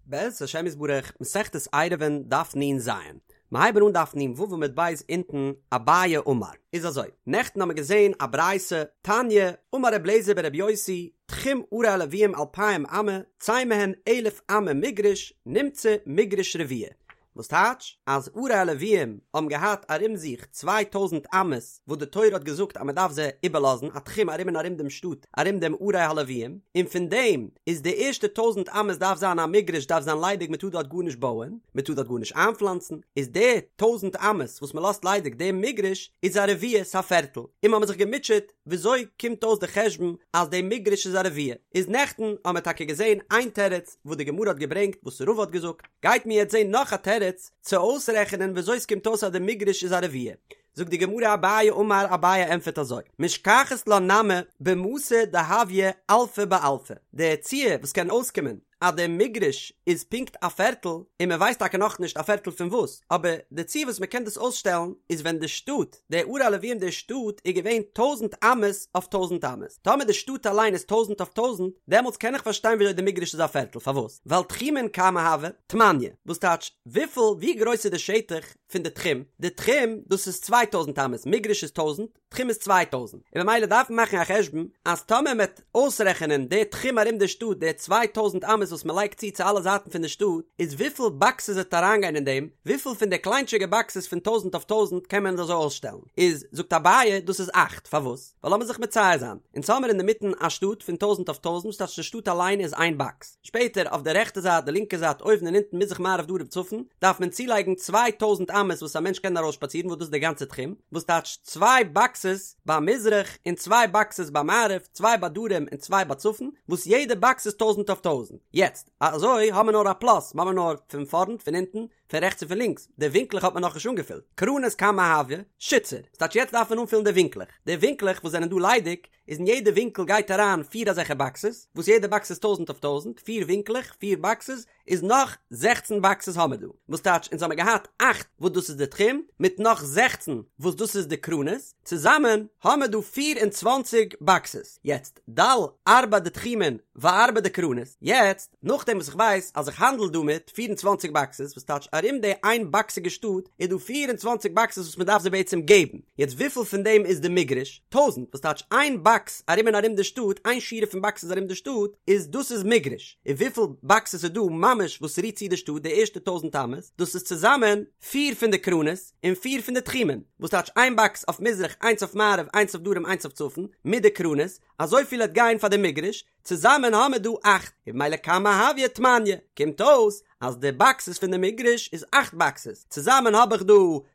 בעזרת השם יתברך, מסכת עירובין דף נ"ז, מיר הייבן אן דף נ"ו עמוד ב' אונטן, אביי אמר. איז אזוי, נעכטן האמיר געזען א ברייתא, תניא, אמר ר' אליעזר בר' יוסי, תחום ערי הלוים אלפיים אמה, צא מהן אלף אמה מגרש, נמצא מגרש רבוע. וואס טייטש אז ערי הלוויים האבן געהאט ארום זיך 2000 אמות וואס די תורה האט געזאגט אז מען דארף זיי איבערלאזן א תחום ארום און ארום דעם שטאט ארום דעם ערי הלוויים און פון דעם איז די ערשטע טויזנט אמות דארף זיין א מגרש דארף זיין ליידיג מען טאר דארט גארנישט בויען מען טאר דארט גארנישט איינפלאנצן איז די טויזנט אמות וואס מען לאזט ליידיג דעם מגרש איז א רביע ס'א פערטל און מ'האמיר זיך געמוטשעט וויאזוי קומט אויס די חשבון אז די מגרש איז א רביע? איז נעכטן האמער טאקע געזען איין תירוץ וואס די גמרא האט געברענגט וואס רבא האט געזאגט, גייט מיר יעצט זען נאך א תירוץ צו אויסרעכענען וויאזוי ס'קומט אויס אז די מגרש איז א רביע. זאגט די גמרא אביי אמר אביי ענטפערט אזוי, משכחת לה נמי במתא דהויא אלפא באלפא, די ציור וואס קען אויסקומען אז די מגרש איז פונקט א פערטל, און מען ווייסט טאקע נאכנישט א פערטל פון וואס, אבער די ציור וואס מען קען דאס אויסשטעלן איז ווען די שטאט, די ערי הלוויים די שטאט איז געווען טויזנט אמות אויף טויזנט אמות, טאמער די שטאט אליין איז טויזנט אויף טויזנט, דעמאלטס קען איך פארשטיין וויאזוי די מגרש איז א פערטל, פארוואס? ווייל תחומין כמה הוו? תמניא, וואס טייטש וויפיל ווי גרויס איז די שטח פון די תחום, די תחום דאס איז 2000 אמות, מגרש איז טויזנט, תחום איז 2000, און ממילא דארף מען מאכן א חשבון אז טאמער מען וועט אויסרעכענען די תחום ארום די שטאט די 2000 אמות וואס מען לייגט צו צו אלע זייטן פון די שטאט איז וויפיל באקסעס וועט אריינגיין אין דעם, וויפיל פון די קליינטשיגע באקסעס פון טויזנט אויף טויזנט קען מען אזוי אויסשטעלן, איז זאגט אביי דאס איז אכט, פארוואס? ווייל לאמיר זיך מצייר זיין, אונז האמיר אינדערמיטן א שטאט פון טויזנט אויף טויזנט וואס טייטש די שטאט אליין איז איין באקס, שפעטער אויף די רעכטע זייט די לינקע זייט אויבן און אונטן מזרח מערב דרום צפון דארף מען צולייגן 2000 אמות וואס א מענטש קען ארויסשפאצירן וואס דאס איז די גאנצע תחום וואס טייטש צוויי באקסעס ביי מזרח און צוויי באקסעס ביי מערב צוויי ביי דרום און צוויי ביי צפון וואס יעדע באקס איז טויזנט אויף טויזנט יעצט אזוי האמער נאר א פלאס מ'האמער נאר פון פארנט פון אונטן פון רעכטס און פון לינקס די ווינקלעך האט מען נאכנישט אנגעפילט קרנות כמה הוו שיתסר ס'טייטש יעצט דארף מען אנפילן די ווינקלעך די ווינקלעך וואס זענען דא ליידיג איז אין יעדע ווינקל גייט אריין פיר אזעלכע באקסעס, וואס יעדע באקס איז טויזנט אויף טויזנט, פיר ווינקלעך, פיר באקסעס, איז נאך זעכצן באקסעס האמער דא, וואס טייטש אונז האמער געהאט אכט וואס דאס איז די תחום, מיט נאך זעכצן וואס דאס איז די קרנות, צוזאמען האמער דא 24 באקסעס, יעצט דל ארבע דתחומין וארבע דקרנות, יעצט נאכדעם וואס איך ווייס אז איך האנדל דא מיט 24 באקסעס, וואס טייטש ארום די איין באקסיגע שטאט איז דא 24 באקסעס וואס מען דארף זיי בעצם געבן, יעצט וויפיל פון דעם איז די מגרש? טויזנט, וואס טייטש איין באקס ארום און ארום די שטאט, איין שורה פון באקסעס ארום די שטאט, איז דאס איז מגרש, און וויפיל באקסעס איז דא ממש וואס רירט צו די שטאט די ערשטע טויזנט אמות, דאס איז צוזאמען פיר פון די קרנות און פיר פון די תחומים, וואס טייטש איין באקס אויף מזרח איינס אויף מערב איינס אויף דרום איינס אויף צפון, מיט די קרנות, אזויפיל העט גיין פאר די מגרש, צוזאמען האמער דא אכט, און במילא כמה הויא תמניא, קומט אויס אז די באקסעס פון די מגרש איז אכט באקסעס, צוזאמען האב איך דא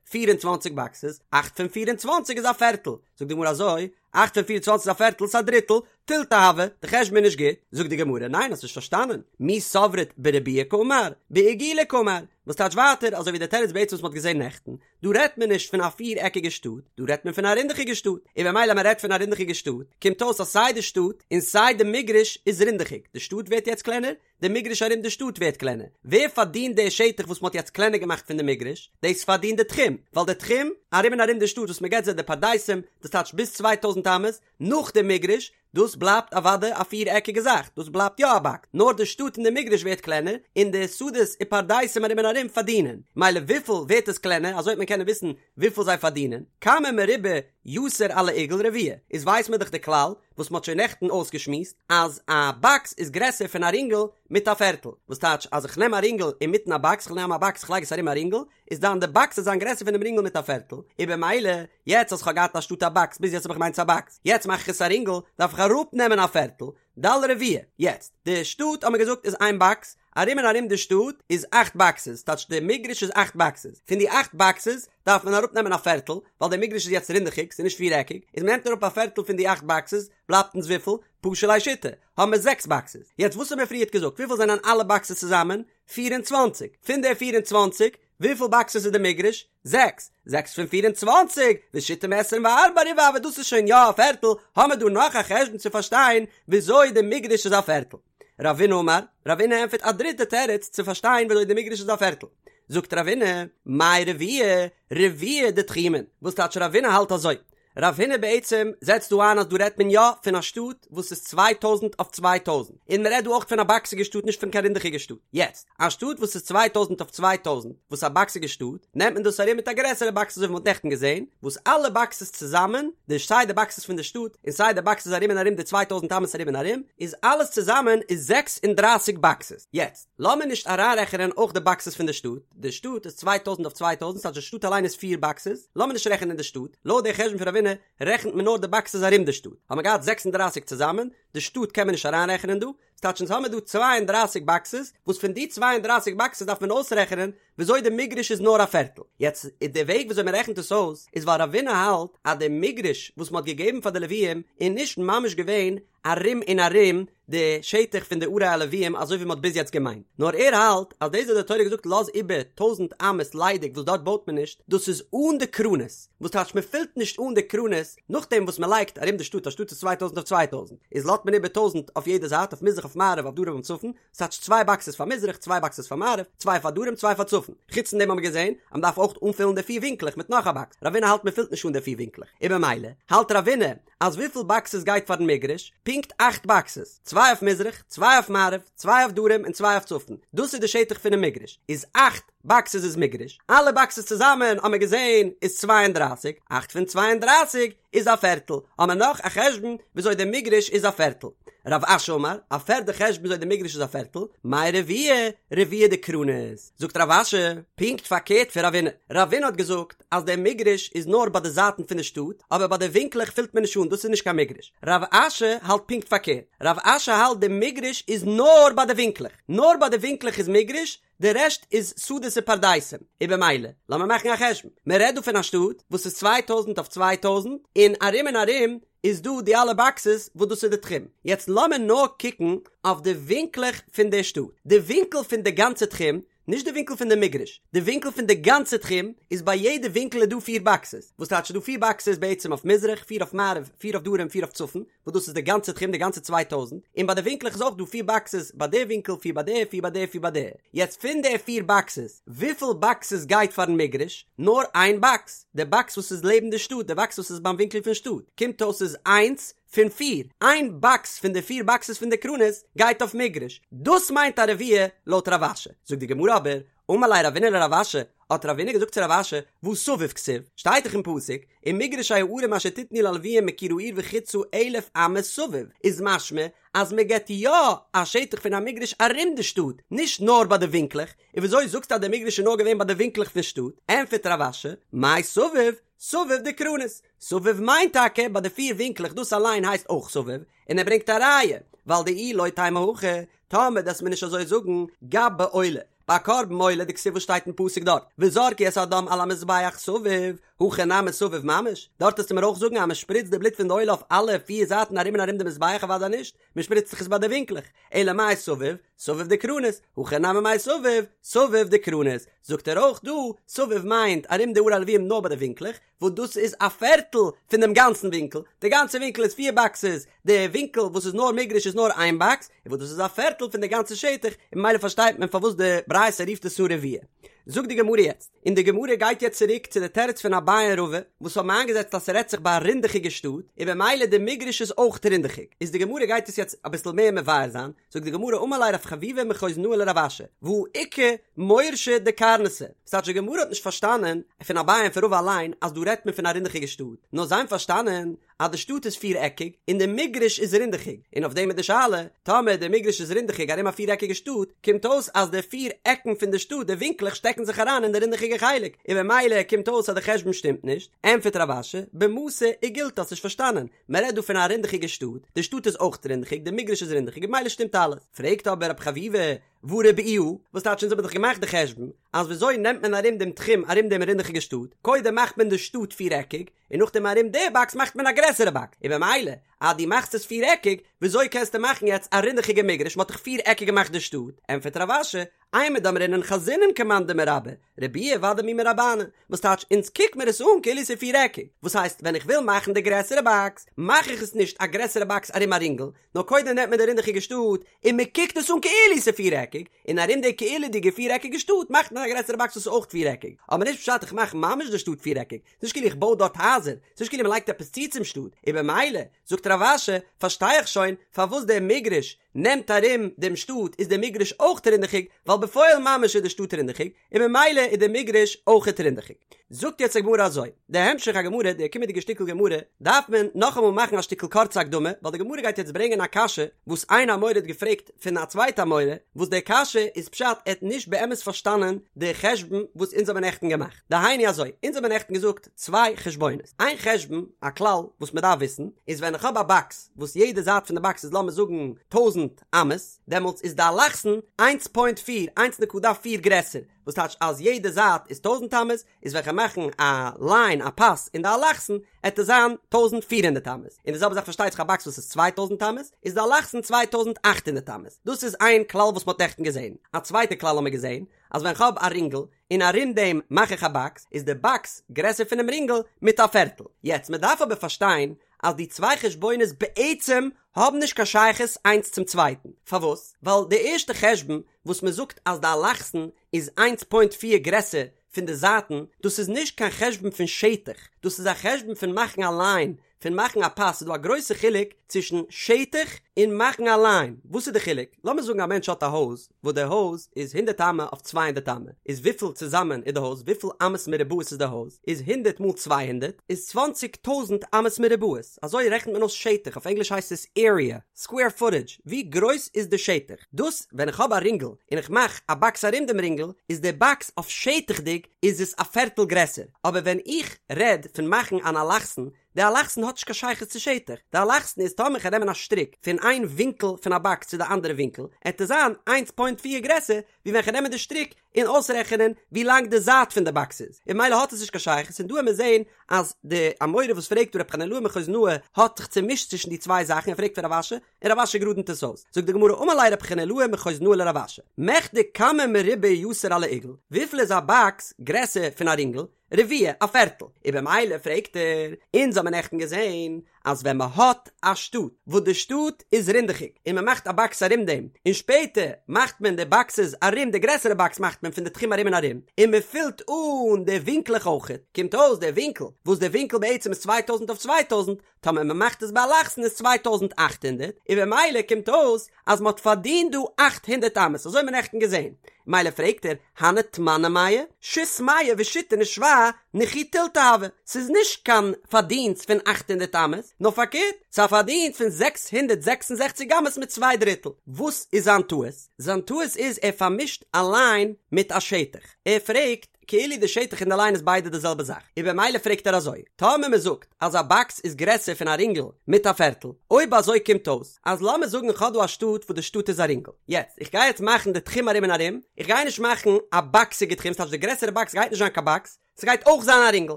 24 באקסעס, אכט פון 24 איז א פערטל, זאגט די גמרא אזוי, אכט פון 24 איז א פערטל, ס'איז א דריטל, תילתא הוי, די חשבון איז נישט גוט, זאגט די גמרא, ניין האסט נישט פארשטאנען, מי סברת בריבועא קאמר, בעיגולא קאמר, וואס טייטש ווייטער אזוי ווי די תירוץ בעצם וואס מ'האט געזען נעכטן, דא רעדט מען נישט פון א פיר עקיגע שטאט, דא רעדט מען פון א רינדעכיגע שטאט, און במילא מען רעדט פון א רינדעכיגע שטאט, קומט אויס אז סיי די שטאט און סיי די מגרש איז רינדעכיג, די שטאט ווערט יעצט קלענער, די מגרש ארום די שטאט ווערט קלענער, ווער פארדינט די שטח וואס מען האט יעצט קלענער געמאכט פון די מגרש? דאס פארדינט די תחום, ווייל די תחום ארום און ארום די שטאט וואס מען געבט זיי די פרדסים, דאס טייטש ביז 2000 אמות נאך די מגרש, דאס בלייבט אוודאי א פיר עקיגע זאך, דאס בלייבט יא א באקס, נאר די שטאט און די מגרש ווערט קלענער, און די שדות און פרדסים ארום און ארום פארדינען, מילא וויפיל ווערט עס קלענער, אזוי וועט מען קענען וויסן וויפיל זיי פארדינען, כמה מרובע יתר על העיגול רביע, איז ווייסט מען דאך די כלל, וואס מ'האט שוין נעכטן אויסגעשמועסט, אז א באקס איז גרעסער פון א רינגל מיט א פערטל, וואס טייטש אז איך נעם א רינגל אינמיטן א באקס, איך נעם א באקס איך לייג עס ארום א רינגל, איז דאן די באקס וועט זיין גרעסער פונעם רינגל מיט א פערטל, און במילא יעצט אז כ'האב געהאט אנשטאט א באקס ביז יעצט האב איך געמיינט ס'איז א באקס, יעצט מאך איך עס א רינגל, דארף איך אראפ נעמען א פערטל, דל רביע. יעצט, די שטאט האט מען געזאגט איז איין באקס, ארום און ארום די שטאט איז אכט באקסעס, טייטש די מגרש איז אכט באקסעס, פון די אכט באקסעס דארף מען אראפ נעמען א פערטל, ווייל די מגרש איז יעצט רינדעכיג, ס'איז נישט פיר עקיג, איז מ'נעמט אראפ א פערטל פון די אכט באקסעס, בלייבט אונז וויפיל? פשו ליה שיתא, האבן מיר זעקס באקסעס. יעצט וואס האבן מיר פריערט געזאגט, וויפיל זענען אלע באקסעס צוזאמען? 24. פון די 24, וויפיל באקסעס איז די מגרש? זעקס. זעקס פון 24, ושיתא מעשרים וארבעה ריבעא הוי, דאס איז שוין יא א פערטל, האמער דא נאך א חשבון צו פארשטיין וויאזוי די מגרש איז א פערטל. רבינא אמר, רבינא ענטפערט א דריטע תירוץ צו פארשטיין וויאזוי די מגרש איז א פערטל. זאגט רבינא, מאי רביע? רביע דתחומין. וואס טייטש רבינא האלט אזוי? רב הונא בעצם זעצט דא איין אז דא רעדט מען יא פון א שטאט וואס איז 2000 אויף 2000, און מען רעדט דא אויך פון א באקסיגע שטאט נישט פון קיין רינדעכיגע שטאט. יעצט, א שטאט וואס איז 2000 אויף 2000 וואס איז א באקסיגע שטאט, נעמט מען דאס ארום מיט א גרעסערע באקס אזוי ווי מען האט נעכטן געזען, וואס אלע באקסעס צוזאמען, די סיי די באקסעס פון די שטאט און סיי די באקסעס ארום און ארום די 2000 אמות ארום און ארום, איז אלעס צוזאמען איז 36 באקסעס. יעצט, לאמיר נישט אריינרעכענען אויך די באקסעס פון די שטאט, די שטאט איז 2000 אויף 2000 ס'טייטש די שטאט אליין איז פיר באקסעס, לאמיר נישט רעכענען די שטאט, לויט די חשבון פון רב הונא רעכנט מען נאר די באקסעס ארום די שטאט, האט מען געהאט 36 צוזאמען, די שטאט קען מען נישט אריינרעכענען דא, ס'טייטש אונז האמיר דא 32 באקסעס, וואס פון די 32 באקסעס דארף מען אויסרעכענען וויאזוי די מגרש איז נאר א פערטל. יעצט די וועג וויאזוי מען רעכנט עס אויס איז ווייל רב הונא האלט אז די מגרש וואס מען האט געגעבן פאר די לוויים איז נישט ממש געווען ארום און ארום די שטח פון די ערי הלוויים אזוי ווי מען האט ביז יעצט געמיינט, נאר ער האלט אז דאס וואס די תורה האט געזאגט לאז איבער טויזנט אמות ליידיג וואס דארט בויט מען נישט, דאס איז אן די קרנות, וואס טייטש מען פילט נישט אן די קרנות נאכדעם וואס מען לייגט ארום די שטאט, א שטאט איז צוויי טויזנט אויף צוויי טויזנט, איז לאזט מען איבער טויזנט אויף יעדע זייט אויף מזרח אויף מערב אויף דרום און צפון, ס'טייטש צוויי באקסעס פאר מזרח, צוויי באקסעס פאר מערב, צוויי פאר דרום, צוויי פאר צפון. חוץ פון דעם האבן מיר געזען אז מ'דארף אויך אנפילן די פיר ווינקלעך מיט נאך א באקס. רב הונא האלט מ'פילט נישט אן די פיר ווינקלעך. און במילא האלט רב הונא אז וויפיל באקסעס גייט פארן מגרש? פונקט אכט באקסעס. צוויי אויף מזרח, צוויי אויף מערב, צוויי אויף דרום און צוויי אויף צפון. דאס איז די שטח פונעם מגרש. איז אכט באקסעס איז מגרש. אלע באקסעס צוזאמען האבן מיר געזען איז 32. אכט פון 32 איז א פערטל, האמער נאך א חשבון וויאזוי די מגרש איז א פערטל. רב אשי אמר, א פערדע חשבון וויאזוי די מגרש איז א פערטל, מאי רביע, רביע דקרנות. זאגט רב אשי, פונקט פארקערט פון רב הונא. רב הונא האט געזאגט אז דער מגרש איז נאר ביי די זייטן פון די שטאט, אבער ביי די ווינקלעך פילט מען נישט אן, דאס איז נישט קיין מגרש. רב אשי האלט פונקט פארקערט. רב אשי האלט די מגרש איז נאר ביי די ווינקלעך. נאר ביי די ווינקלעך איז מגרש, די רעשט איז שדות און פרדסים, און במילא, לאמיר מאכן א חשבון, מען רעדט דא פון א שטאט וואס איז צוויי טויזנט אויף צוויי טויזנט, און ארום און ארום איז דא די אלע באקסעס וואס דאס איז די תחום, יעצט לאמיר נאר קוקן אויף די ווינקלעך פון די שטאט, די ווינקל פון די גאנצע תחום, נישט די ווינקל פון די מגרש, די ווינקל פון די גאנצע תחום, איז ביי יעדע ווינקל איז דא פיר באקסעס, וואס טייטש ס'איז דא פיר באקסעס בעצם אויף מזרח, פיר אויף מערב, פיר אויף דרום, פיר אויף צפון, וואס דאס איז די גאנצע תחום די גאנצע צוויי טויזנט, און ביי די ווינקלעך איז אויך דא פיר באקסעס ביי די ווינקל פיר ביי די פיר ביי די פיר ביי די, יעצט פון די פיר באקסעס וויפיל באקסעס גייט פארן מגרש? נאר איין באקס, די באקס וואס איז לעבן די שטאט, די באקס וואס איז ביים ווינקל פון שטאט, קומט אויס איז איינס פון פיר, איין באקס פון די פיר באקסעס פון די קרנות גייט אויף מגרש, דאס מיינט א רביע לויט רב אשי, זאגט די גמרא אבער, אמר ליה רבינא לרב אשי, האט רבינא געזאגט צו רב אשי, והא סביב כתיב, שטייט דאך אין פסוק, ומגרשי הערים אשר תתנו ללוים מקיר העיר וחוצה אלף אמה סביב, איז משמע אז מען געבט יא א שטח פון א מגרש ארום די שטאט, נישט נאר ביי די ווינקלעך, און וויאזוי זאגסטו אז די מגרש איז נאר געווען ביי די ווינקלעך פון שטאט? ענטפערט רב אשי, מאי סביב? סביב דקרנות, סביב מיינט טאקע ביי די פיר ווינקלעך דאס אליין הייסט אויך סביב, און ער ברענגט א ראיה, ווייל דאי לא תימא הכי, טאמער דו'סט מיר נישט אזוי זאגן, גבי עולה, ביי קרבן עולה דכתיב וואס שטייט אין פסוק דארט, וזרקו את הדם על המזבח סביב, הכא נמי סביב ממש, דארט וועסטו מיר אויך זאגן אז מען שפריצט די בלוט פון די עולה אויף אלע פיר זייטן ארום און ארום די מזבח אוודאי נישט, מען שפריצט זיך עס ביי די ווינקלעך, אלא מאי סביב, סביב דקרנות, הכא נמי מאי סביב, סביב דקרנות, זאגט ער אויך דא, סביב מיינט ארום די ערי הלווים נאר ביי די ווינקלעך, וואס דאס איז א פערטל פון דעם גאנצן ווינקל, די גאנצע ווינקל איז פיר באקסעס, די ווינקל וואס איז נאר מגרש איז נאר איין באקס, און וואס דאס איז א פערטל פון די גאנצע שטח, און ממילא פארשטייט מען פארוואס די ברייתא רופט עס אן רביע. זאגט די גמרא יעצט, און די גמרא גייט יעצט צוריק צו די תירוץ פון אביי און רבא, וואס האבן איינגעזעצט אז ס'רעדט זיך ביי א רינדעכיגע שטאט, און במילא די מגרש איז אויך רינדעכיג, איז די גמרא גייט עס יעצט אביסל מער מבאר זיין, זאגט די גמרא אמר ליה רב חביבא מחוזנאה לרב אשי, והא איכא מורשא דקרנתא, ס'טייטש די גמרא האט נישט פארשטאנען פון אביי און פון רבא אליין אז דא רעדט מען פון א רינדעכיגע שטאט, נאר זיי האבן פארשטאנען אז די שטאט איז פיר עקיג און די מגרש איז רינדעכיג, און אויף דעם איז די שאלה, טאמער די מגרש איז רינדעכיג ארום א פיר עקיגע שטאט, קומט אויס אז די פיר עקן פון די שטאט, די ווינקלעך שטעקן זיך אריין אין די רינדעכיגע חלק, און במילא קומט אויס אז די חשבון שטימט נישט, ענטפערט רב אשי, במתא עיגולתא האסט נישט פארשטאנען, מען רעדט דא פון א רינדעכיגע שטאט, די שטאט איז אויך רינדעכיג, די מגרש איז רינדעכיג, במילא שטימט אלעס. פרעגט אבער רב חביבא, והא ריבעוה, וואס טייטש אונז האבן דאך געמאכט די חשבון, אז וויאזוי נעמט מען ארום דעם תחום ארום דעם רינדעכיגע שטאט, קודם מאכט מען די שטאט פיר עקיג, און נאכדעם ארום די באקס מאכט מען א גרעסערע באקס, און במילא אז דו מאכסט עס פיר עקיג, וויאזוי קענסטו מאכן יעצט א רינדעכיגע מגרש, מען האט דאך פיר עקיג געמאכט די שטאט, ענטפערט רב אשי, אימר דאמרינן חזינן כמאן דמרבעי, רבועי ודאי מי מרבענא, וואס טייטש אונז קוק מיר עס אן כאילו ס'איז פירעקיג, וואס הייסט ווען איך וויל מאכן די גרעסערע באקס מאך איך עס נישט א גרעסערע באקס ארום א רינגל, נאר קודם נעמט מען די רינדעכיגע שטאט און מען קוקט עס אן כאילו ס'איז פירעקיג, און ארום די כאילו'דיגע פירעקיגע שטאט מאכט מען א גרעסערע באקס וואס איז אויך פירעקיג, אבער נישט פשט איך מאך ממש די שטאט פירעקיג, ס'נישט כאילו איך בוי דארט הייזער, ס'נישט כאילו מ'לייגט עפעס צו צום שטאט, און במילא, זאגט רב אשי, פארשטיי איך שוין פארוואס דער מגרש נעמט ארום דעם שטאט איז דער מגרש אויך רינדעכיג, ווייל בפועל ממש איז די שטאט רינדעכיג, און במילא איז דער מגרש אויכעט רינדעכיג. זאגט יעצט די גמרא אזוי, די המשך הגמרא, די קומענדיגע שטיקל גמרא, דארף מען נאכאמאל מאכן א שטיקל קורצע הקדמה, ווייל די גמרא גייט יעצט ברענגען א קשיא וואס איין אמורא האט געפרעגט פון א צווייטע אמורא, וואס די קשיא איז פשט ער האט נישט באמת פארשטאנען די חשבון וואס אונז האבן נעכטן געמאכט. דהיינו אזוי, אונז האבן נעכטן געזאגט צוויי חשבונות, איין חשבון, א כלל וואס מען דארף וויסן, איז ווען איך האב א באקס וואס יעדע זייט פון די באקס איז לאמיר זאגן טויזנט אמות, דעמאלטס איז די אלכסון איינס פוינט פיר, איינס נקודה פיר גרעסער, וואס טייטש אז יעדע זייט איז טויזנט אמות, איז ווען כ'וועל מאכן א ליין א פאס אין די אלכסון, עט עס זיין 1400 אמות, און די זעלבע זאך פארשטייט זיך א באקס וואס איז 2000 אמות, איז די אלכסון 2800 אמות, דאס איז איין כלל וואס מ'האט נעכטן געזען, א צווייטע כלל האמיר געזען, אז ווען כ'האב א רינגל, און ארום דעם מאך איך א באקס, איז די באקס גרעסער פונעם רינגל מיט א פערטל. יעצט, מ'דארף אבער פארשטיין אז די צוויי חשבונות בעצם האבן נישט קיין שייכות איינס צום צווייטן. פארוואס? ווייל די ערשטע חשבון וואס מ'זאגט אז די אלכסון איז איינס פוינט פיר גרעסער פון די זייטן, דאס איז נישט קיין חשבון פון שטח, דאס איז א חשבון פון מאכן א ליין, פון מאכן א פאס, ס'איז דא א גרויסע חילוק צווישן שטח און מאכן א ליין, וואס איז די חילוק? לאמיר זאגן א מענטש האט א הויז, וואס די הויז איז הונדערט אמה אויף צוויי הונדערט אמה, איז וויפיל צוזאמען איז די הויז, וויפיל אמות מרובעות איז די הויז, איז הונדערט מאל צוויי הונדערט איז צוואנציג טויזנט אמות מרובעות, אזוי רעכנט מען אויס שטח, אויף ענגליש הייסט עס עריע, סקווער פוטעדזש, ווי גרויס איז די שטח, דאס ווען איך האב א רינגל און איך מאך א באקס ארום דעם רינגל, איז די באקס אויף שטח'דיג איז עס א פערטל גרעסער, אבער ווען איך רעד פון מאכן אן אלכסון, די אלכסון האט נישט קיין שייכות צו שטח, די אלכסון איז טאמער כ'גיי נעמען א שטריק פון איין ווינקל פון א באקס צו די אנדערע ווינקל, עט עס זיין איינס פוינט פיר גרעסער ווי ווען כ'נעם די שטריק און אויסרעכענען ווי לאנג די זייט פון די באקס איז, און ממילא האט עס נישט קיין שייכות, און דא עמיר זעהן אז די אמורא וואס פרעגט דא רב חנילאי מחוזנאה האט זיך צומישט צווישן די צוויי זאכן ער פרעגט פון רב אשי און רב אשי גראדנט עס אויס, זאגט די גמרא אמר ליה רב חנילאי מחוזנאה לרב אשי, מכדי כמה מרובע יתר על העיגול, וויפיל איז א באקס גרעסער פון א רינגל, רביע, א פערטל. און במילא פרעגט ער, אונז האמיר נעכטן געזען אז ווען מען האט א שטאט וואס די שטאט איז רינדעכיג און מען מאכט א באקס ארום דעם און שפעטער מאכט מען די באקסעס ארום די גרעסערע באקס מאכט מען פון די תחום ארום און ארום און מען פילט אן די ווינקלעך אויכעט קומט אויס די ווינקל וואס די ווינקל בעצם איז צוויי טויזנט אויף צוויי טויזנט טאמער מען מאכט עס באלכסון איז 2800 און במילא קומט אויס אז מען האט פארדינט דא 800 אמות אזוי האט מען נעכטן געזען מילא פרעגט ער הני תמני מאה שית מאה ושיתין ושבע נכי תילתא הוה ס'איז נישט קיין פארדינסט פון 800 אמות נאר פארקערט ס'איז א פארדינסט פון 666 אמות מיט צוויי דריטל וואס איז זיין טעות? זיין טעות איז ער פארמישט א ליין מיט א שטח ער פרעגט כאילו די שטח און די ליין איז ביידע די זעלבע זאך, און במילא פרעגט ער אזוי, טאמער מען זאגט אז א באקס איז גרעסער פון א רינגל מיט א פערטל, אויב אזוי קומט אויס אז לאמיר זאגן איך האב דא א שטאט וואס די שטאט איז א רינגל, יעצט איך גיי יעצט מאכן די תחום ארום און ארום, איך גיי נישט מאכן א באקסיגע תחום, ס'טייטש די גרעסערע באקס גייט נישט זיין קיין באקס, ס'גייט אויך זיין א רינגל,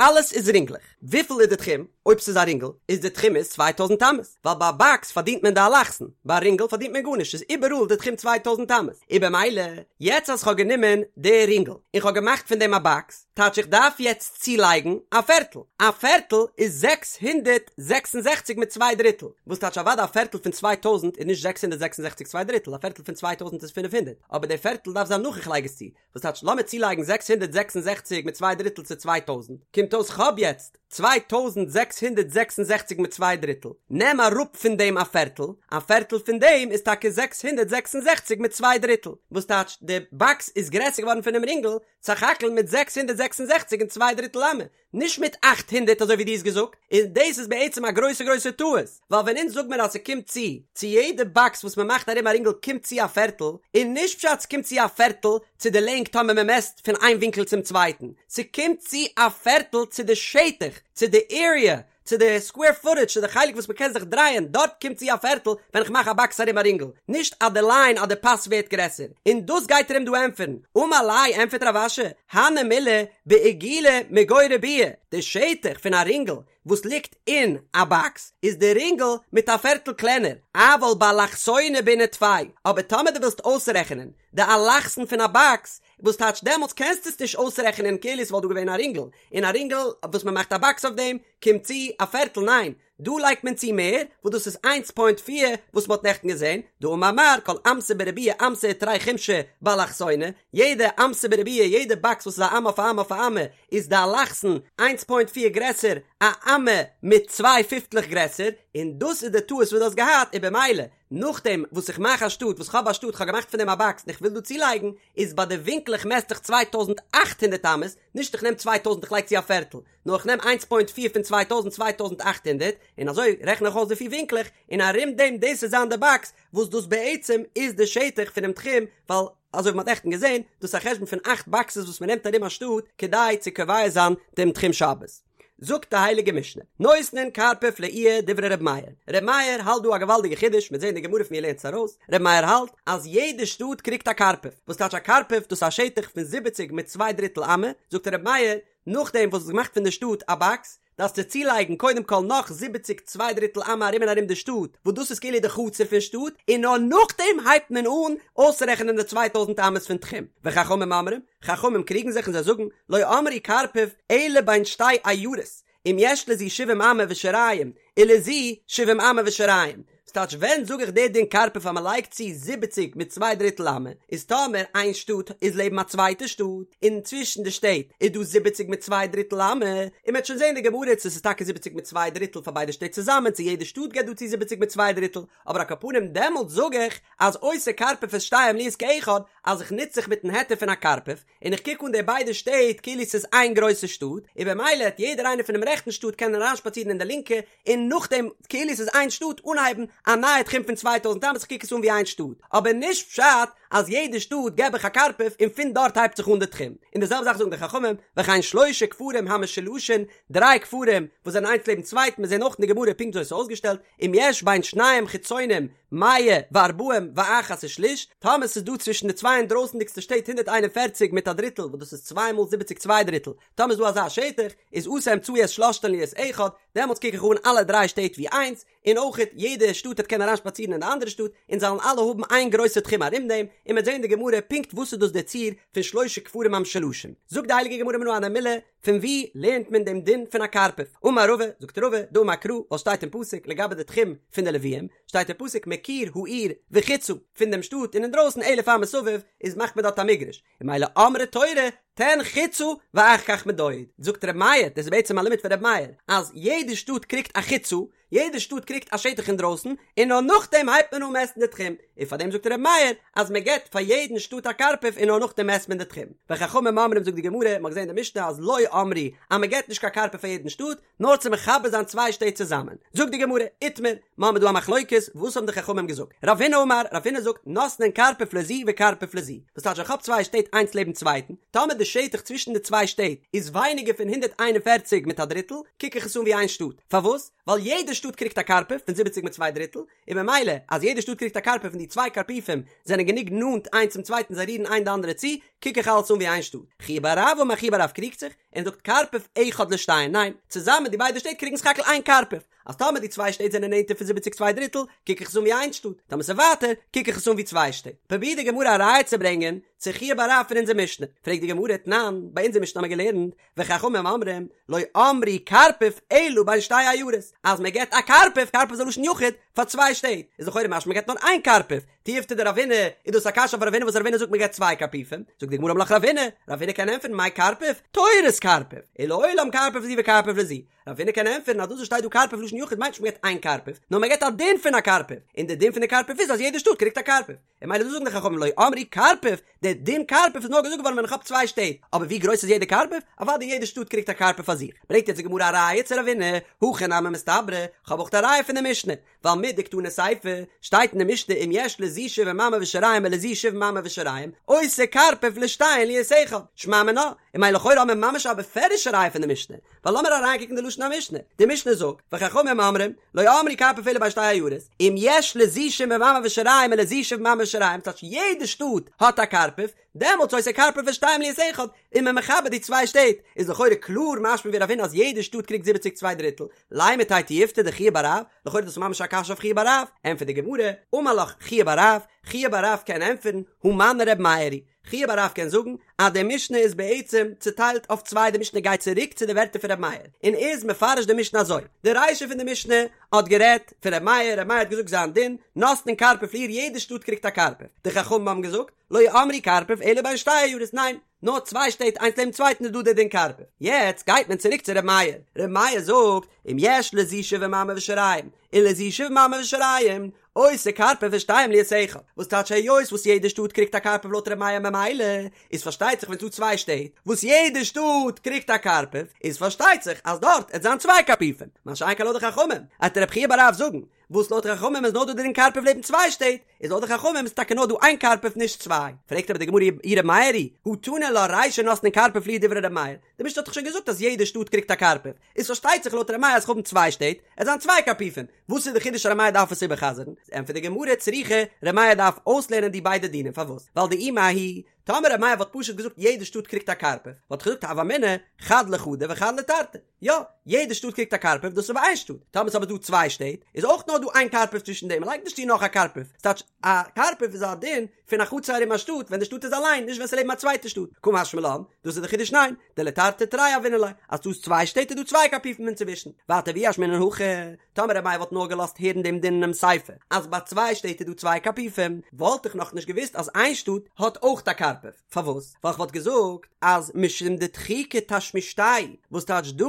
אלעס איז רינגלעך, וויפיל איז די תחום? אויב ס'איז א רינגל איז די תחום איז צוויי טויזנט אמות, ווייל ביי א באקס פארדינט מען די אלכסון, ביי א רינגל פארדינט מען גארנישט, ס'איז איבעראל די תחום צוויי טויזנט אמות, און במילא יעצט אז כ'האב גענומען די רינגל און כ'האב געמאכט פון דעם א באקס, טייטש איך דארף יעצט צולייגן א פערטל, א פערטל איז 666 מיט צוויי דריטל, וואס טייטש אוודאי א פערטל פון 2000 איז נישט 666 צוויי דריטל, א פערטל פון 2000 איז 500, אבער די פערטל דארף זיין נאך איך לייג עס צו, וואס טייטש לאמיר צולייגן 666 מיט צוויי דריטל צו 2000, קומט אויס כ'האב יעצט 2666 מיט צוויי דריטל, נעם אראפ פון דעם א פערטל, א פערטל פון דעם איז טאקע 666 מיט צוויי דריטל, וואס טייטש די באקס איז גרעסער געווארן פונעם רינגל, סך הכל מיט 666 און צוויי דריטל אמה, נישט מיט 800 אזוי ווי דו האסט געזאגט, און דאס איז בעצם א גרויסע גרויסע טעות, ווייל ווען אונז זאג מיר אז ס'קומט צו צו יעדע באקס וואס מ'מאכט ארום א רינגל קומט צו א פערטל, איז נישט פשט ס'קומט צו א פערטל צו די לענג טאמער מ'מעסט פון איין ווינקל צום צווייטן, ס'קומט צו א פערטל צו די שטח, צו די עריע. צו די סקווער פוטעדזש צו די חלק וואס מ'קען זיך דרייען דארט קומט צו א פערטל ווען איך מאך א באקס ארום א רינגל, נישט אז די ליין אז די פאס ווערט גרעסער, און דאס גייט ער אים דא ענטפערן, אמר ליה ענטפערט רב אשי, הני מילי בעיגולא מגו ריבועא, די שטח פון א רינגל וואס ליגט אין א באקס איז די רינגל מיט א פערטל קלענער, אבל באלכסונא בעינן טפי, אבער טאמער דו ווילסט אויסרעכענען די אלכסון פון א באקס, וואס טייטש דעמאלטס קענסטו עס נישט אויסרעכענען כאילו עס וואלט דא געווען א רינגל, און א רינגל וואס מען מאכט א באקס אויף דעם קומט צו א פערטל ניין, דא לייגט מען צו מער, וואס דאס איז איינס פוינט פיר וואס מען האט נעכטן געזען, דאמר מר כל אמתא בריבועא אמתא ותרי חומשי באלכסונא, יעדע אמתא בריבועא יעדע באקס וואס איז א אמה אויף א אמה אויף א אמה איז די אלכסון איינס פוינט פיר גרעסער א אמה מיט צוויי פיפטלעך גרעסער, און דאס איז די טעות וואס דו האסט געהאט, און במילא נאכדעם וואס איך מאך א שטאט וואס כ'האב א שטאט כ'האב געמאכט פון דעם א באקס און איך וויל דא צולייגן איז ביי די ווינקלעך מעסט איך 2800 אמות נישט איך נעם 2000 איך לייג צו א פערטל נאר איך נעם איינס פוינט פיר פון 2000 2800 און אזוי רעכן איך אויס די פיר ווינקלעך און ארום דעם דאס איז זיין די באקס וואס דאס בעצם איז די שטח פונעם תחום ווייל אזוי ווי מ'האט נעכטן געזען דאס איז א חשבון פון אכט באקסעס וואס מ'נעמט ארום א שטאט כדי צו קובע זיין דעם תחום שבת. זאגט די הייליגע משנה, נותנין קרפף לעיר דברי ר' מאיר, ר' מאיר האלט דא א געוואלדיגע חידוש, מ'וועט זען אין די גמרא פון ווי ער לערנט עס ארויס, ר' מאיר האלט אז יעדע שטאט קריגט א קרפף, וואס טייטש א קרפף, דאס איז א שטח פון זיבעציג מיט צוויי דריטל אמה, זאגט ר' מאיר, נאכדעם וואס האסט געמאכט פון די שטאט א באקס, דארפסטו צולייגן קודם כל נאך זיבעציג צוויי דריטל אמה ארום און ארום די שטאט, וואס דאס איז כאילו די חצר פון שטאט, און נאר נאכדעם הייבט מען אן אויסרעכענען די 2000 אמות פון תחום, וחכמים אומרים, חכמים קריגן זיך און זיי זאגן, לא אמרו קרפף אלא בין שתי עיירות, אם יש לזו שבעים אמה ושיריים, ולזו שבעים אמה ושיריים. ס'טייטש ווען זאג איך די דין קרפף אז מ'לייגט צו זיבעציג מיט צוויי דריטל אמה, איז טאמער איין שטאט איז לעבן א צווייטע שטאט, און צווישן די שטעט איז דא זיבעציג מיט צוויי דריטל אמה, און מ'וועט שוין זען די גמרא צו ס'איז טאקע זיבעציג מיט צוויי דריטל פאר ביידע שטעט צוזאמען צו יעדע שטאט געבט דא צו זיבעציג מיט צוויי דריטל, אבער על כל פנים דעמאלטס זאג איך אז עושה קרפף את שתיהן להיות כאחד, אז איך נוץ זיך מיטן היתר פון א קרפף, און איך קוק אן די ביידע שטעט כאילו ס'איז איין גרויסע שטאט, און במילא העט יעדער איינער פונעם רעכטן שטאט קענען אריינשפאצירן אין די לינקע, און נאכדעם כאילו ס'איז איין שטאט אנהייבן א נייע תחום פון 2000 אמות, איך קוק עס אן ווי איין שטאט, אבער נישט פשט אז יעדע שטאט געב איך א קרפף און פון דארט הייבט זיך אן די תחום, און די זעלבע זאך זאגן די חכמים, וכן שלשה כפרים המשולשין, דריי כפרים וואס זענען איינס לעבן צווייטן, מיר זעען אויך אין די גמרא פונקט אזוי ס'איז אויסגעשטעלט, אם יש בין שניים חיצונים מאה וארבעים ואחת ושליש, טאמער ס'איז דא צווישן די צוויי אינדרויסנדיגסטע שטעט 141 מיט א דריטל וואס דאס איז צוויי מאל זיבעציג צוויי דריטל, טאמער איז דא אזא שטח, איז עשה אמצעי את שלשתן להיות אחד, דעמאלטס קוק איך אן אלע דריי שטעט ווי איינס, און אויכעט יעדע שטאט העט קענען אריינשפאצירן אין די אנדערע שטאט, און זיי וועלן אלע האבן איין גרויסע תחום ארום דעם, און מ'וועט זען אין די גמרא פונקט וואס איז דאס דער ציור פון שלשה כפרים המשולשים. זאגט די הייליגע גמרא מנא הני מילי, פון וואו לערנט מען דעם דין פון א קרפף? אמר רבא, זאגט רבא, דאמר קרא, וואס שטייט אין פסוק לגבי די תחום פון די לוויים, שטייט אין פסוק מקיר העיר וחוצה, פון דעם שטאט און אינדרויסן אלף אמה סביב, איז מאכט מען דארט א מגרש, און ממילא אמרה תורה, תן חוצה ואחר כך מדוד. זאגט ר' מאיר, דאס איז בעצם א לימוד פון ר' מאיר, אז יעדע שטאט קריגט א חוצה, יעדע שטאט קריגט א שטח אינדרויסן, און נאר נאכדעם הייבט מען אן מעסטן די תחום, און פאר דעם זאגט ר' מאיר אז מען געבט פאר יעדן שטאט א קרפף און נאר נאכדעם מעסט מען די תחום. וחכמים אומרים זאגט די גמרא, מען האט געזען אין די משנה אז לא אמרו אז מען געבט נישט קיין קרפף פאר יעדן שטאט, נאר צו מחבר זיין צוויי שטעט צוזאמען. זאגט די גמרא, איתמר, מיר האבן דא א מחלוקת, וואס האבן די חכמים געזאגט? רב הונא אמר, רב הונא זאגט, נותנין קרפף לזו וקרפף לזו, וואס טייטש איך האב צוויי שטעט איינס לעבן צווייטן, טאמער די שטח צווישן די צוויי שטעט איז ווייניגער פון 141 מיט א דריטל, קוק איך עס אן ווי איין שטאט. פארוואס? ווייל יעדע שטאט קריגט א קרפף פון זיבעציג מיט צוויי דריטל, און ממילא אז יעדע שטאט קריגט א קרפף און די צוויי קרפיפים זענען גענוג נאנט איינס צום צווייטן זיי רירן איין די אנדערע צו, קוק איך אלעס אן ווי איין שטאט. חייא בר רב אמר חייא בר רב קריגט זיך, און זאגט קרפף אחד לשתיהן, ניין, צוזאמען די ביידע שטעט קריגן סך הכל איין קרפף, אז טאמער די צוויי שטעט זענען נענטער פון זיבעציג צוויי דריטל, קוק איך עס אן ווי איין שטאט, טאמער ס'איז ווייטער, קוק איך עס אן ווי צוויי שטעט. פרובירט די גמרא א ראיה צו ברענגען צו חייא בר רב פון אונזער משנה, פרעגט די גמרא, תנן, ביי אונזער משנה האבן מיר געלערנט, וחכמים אומרים, לא אמרו קרפף אלא בין שתי עיירות, אז מען געבט א קרפף, קרפף איז א לשון יחיד, פאר צוויי שטעט, איז לכאורה משמע מען געבט נאר איין קרפף, תיובתא דרב הונא, איז דאס א קשיא אויף רב הונא וואס רב הונא זאגט מען געבט צוויי קרפיפים, זאגט די גמרא אמר לך רב הונא, רב הונא קען ענטפערן מאי קרפף, תורת קרפף, ולעולם קרפף לזו וקרפף לזו, רב הונא קען ענטפערן אז דאס וואס שטייט דא קרפף לשון יחיד מיינט נישט מען געבט איין קרפף, נאר מען געבט א דין פון א קרפף, און די דין פון די קרפף איז אז יעדע שטאט קריגט א קרפף. און ממילא דאס זאגן די חכמים לא אמרו קרפף, דער דין קרפף איז נאר געזאגט געווארן ווען איך האב צוויי שטעט, אבער ווי גרויס איז יעדע קרפף? אוודאי יעדע שטאט קריגט א קרפף פאר זיך. ברענגט יעצט די גמרא א ראיה צו רב הונא, הכי נמי מסתברא, כ'האב אויך א ראיה פון די משנה, ווייל מדקתני סיפא, שטייט אין די משנה אם יש לזו. לזו שבעים אמה ושיריים ולזו שבעים אמה ושיריים, עושה קרפף לשתיהן להיות אחד, שמע מינה, און ממילא לכאורה האבן מיר ממש א בפירוש'ע ראיה פון די משנה, ווייל לאמיר אריינקוקן די לשון המשנה, די משנה זאגט, וחכמים אומרים, לא אמרו קרפף אלא בין שתי עיירות, אם יש לזו שבעים אמה ושיריים ולזו שבעים אמה ושיריים, ס'טייטש יעדע שטאט האט א קרפף, דעמאלטס עושה קרפף לשתיהן להיות אחד, איז מען מחבר די צוויי שטעט, איז לכאורה קלאר משמע ווי רב הונא אז יעדע שטאט קריגט זיבעציג צוויי דריטל, לימא תיהוי תיובתא דחייא בר רב, לכאורה איז דאס ממש א קשיא אויף חייא בר רב, ענטפערט די גמרא, אמר לך חייא בר רב, חייא בר רב קען ענטפערן, הא מני ר' מאיר היא, חייא בר רב קען זאגן אז די משנה איז בעצם צוטיילט אויף צוויי די משנה גייט צוריק צו די ווערטער פון ר' מאיר, און איז מפרש די משנה אזוי, די רישא פון די משנה האט גערעדט פון ר' מאיר, ר' מאיר האט געזאגט זיין דין, נותנין קרפף לעיר יעדע שטאט קריגט א קרפף, די חכמים האבן געזאגט, לא אמרו קרפף אלא בין שתי עיירות, ניין, נאר צוויי שטעט איינס לעבן צווייטן איז דא דער דין קרפף. יעצט גייט מען צוריק צו ר' מאיר, ר' מאיר זאגט, אם יש לזו שבעים אמה ושיריים, ולזו שבעים אמה ושיריים, עושה קרפף לשתיהן להיות אחד. וואס טייטש היות וואס יעדע שטאט קריגט א קרפף לויט ר' מאיר ממילא איז פארשטייט זיך ווען ס'דא צוויי שטעט וואס יעדע שטאט קריגט א קרפף איז פארשטייט זיך אז דארט עט זיין צוויי קרפיפים מה שאין כן לויט די חכמים עט רב חייא בר רב זאגן וואס לויט חכמים איז נאר דא דער דין קרפף לעבן צוויי שטעט, איז לויט די חכמים איז טאקע נאר דא איין קרפף נישט צוויי. פרעגט אבער די גמרא אי ר' מאיר היא, הא תנא לה רישא נותנין קרפף לעיר דברי ר' מאיר, די משנה האט דאך שוין געזאגט אז יעדע שטאט קריגט א קרפף, איז פארשטייט זיך לויט ר' מאיר אז כ'האבן צוויי שטעט, עט זיין צוויי קרפיפים, וואס איז די חידוש אז ר' מאיר דארף עס איבער'חזר'ן? ענטפערט די גמרא צריכא, ר' מאיר דארף אויסלערנען די ביידע דינים, פארוואס? ווייל דאי מההיא, טאמער ר' מאיר וואלט פשוט געזאגט יעדע שטאט קריגט א קרפף, וואלט איך געזאגט הוה אמינא חד לחדא וחד לתרתי, יא, יעדע שטאט קריגט א קרפף, דאס איז ביי איין שטאט. טאמער ס'איז אבער דא צוויי שטעט, איז אויך נאר דא איין קרפף צווישן דעם, מ'לייגט נישט צו נאך א קרפף. ס'טייטש, א קרפף איז א דין פון א חצר ארום א שטאט, ווען די שטאט איז אליין, נישט ווען ס'לעבן א צווייטע שטאט. קא משמע לן, דאס איז די חידוש ניין, דלתרתי תרי הוינן ליה, אז ס'דא צוויי שטעט איז דא צוויי קרפיפים אינצווישן. ווייטער ואי אשמעינן הכא, טאמער ר' מאיר וואלט נאר געלאזט הערן דעם דין אינעם סיפא, אז ביי צוויי שטעט איז דא צוויי קרפיפים, וואלט איך נאכנישט געוואוסט אז איין שטאט האט אויך א קרפף. פארוואס? ווייל כ'וואלט געזאגט אז משום דדחיקא תשמישתייהו, וואס טייטש דא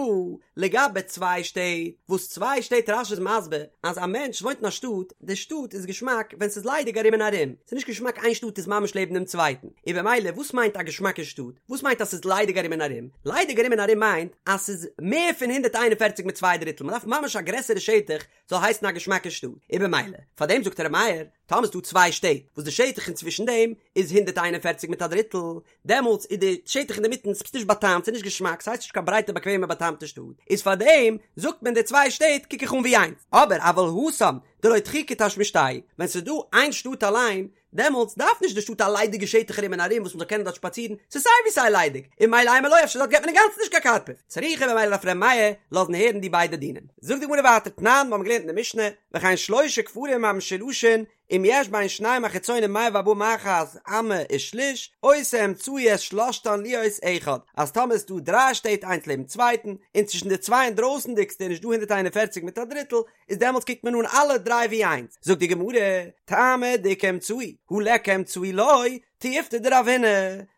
לגבי צוויי שטעט, וואס צוויי שטעט רש"י איז מסביר אז א מענטש וואוינט אין א שטאט, די שטאט איז געשמאק ווען ס'איז ליידיג ארום און ארום, ס'איז נישט געשמאק איין שטאט איז ממש לעבן דעם צווייטן, און במילא וואס מיינט א געשמאקע שטאט? וואס מיינט אז ס'איז ליידיג ארום און ארום? ליידיג ארום און ארום מיינט אז ס'איז מער פון 141 מיט צוויי דריטל, מ'דארף ממש א גרעסערע שטח זאל הייסן א געשמאקע שטאט, און במילא פאר דעם זאגט ר' מאיר, טאמער ס'דא צוויי שטעט וואס די שטח אינצווישן דעם איז 141 מיט א דריטל, דעמאלטס איז די שטח אינדערמיטן ס'איז נישט באטאמט, ס'איז נישט געשמאק, ס'הייסט נישט קיין ברייטע באקוועמע באטאמטע שטאט, איז פאר דעם זאגט מען די צוויי שטעט קוק איך אן ווי איינס, אבער אבל התם דלא דחיקא תשמישתייהו, ווען ס'איז דא איין שטאט אליין, דעמאלטס דארף נישט די שטאט א ליידיגע שטח ארום און ארום וואס מ'זאל קענען דארט שפאצירן, ס'איז סיי ווי סיי ליידיג, און ממילא אימא לא אפשר דארט געט מען אינגאנצן נישט קיין קרפף, צריכא במילא דארף ר' מאיר לאזן הערן די ביידע דינים. זאגט די גמרא ווייטער תנן, מיר האבן געלערנט אין די משנה, וכן שלשה כפרים המשולשין, אם יש בין שניים החיצונים מאה וארבעים ואחת אמה ושליש, עושה אמצעי את שלשתן להיות אחד, אז טאמער איז דא דריי שטעט איינס לעבן צווייטן, און צווישן די צוויי אינדרויסנדיגסטע איז נישט דא 141 מיט א דריטל, איז דעמאלטס קוקט מען אן אלע דריי ווי איינס, זאגט די גמרא, טעמא דאיכא אמצעי, הא ליכא אמצעי לא, תיובתא דרב הונא,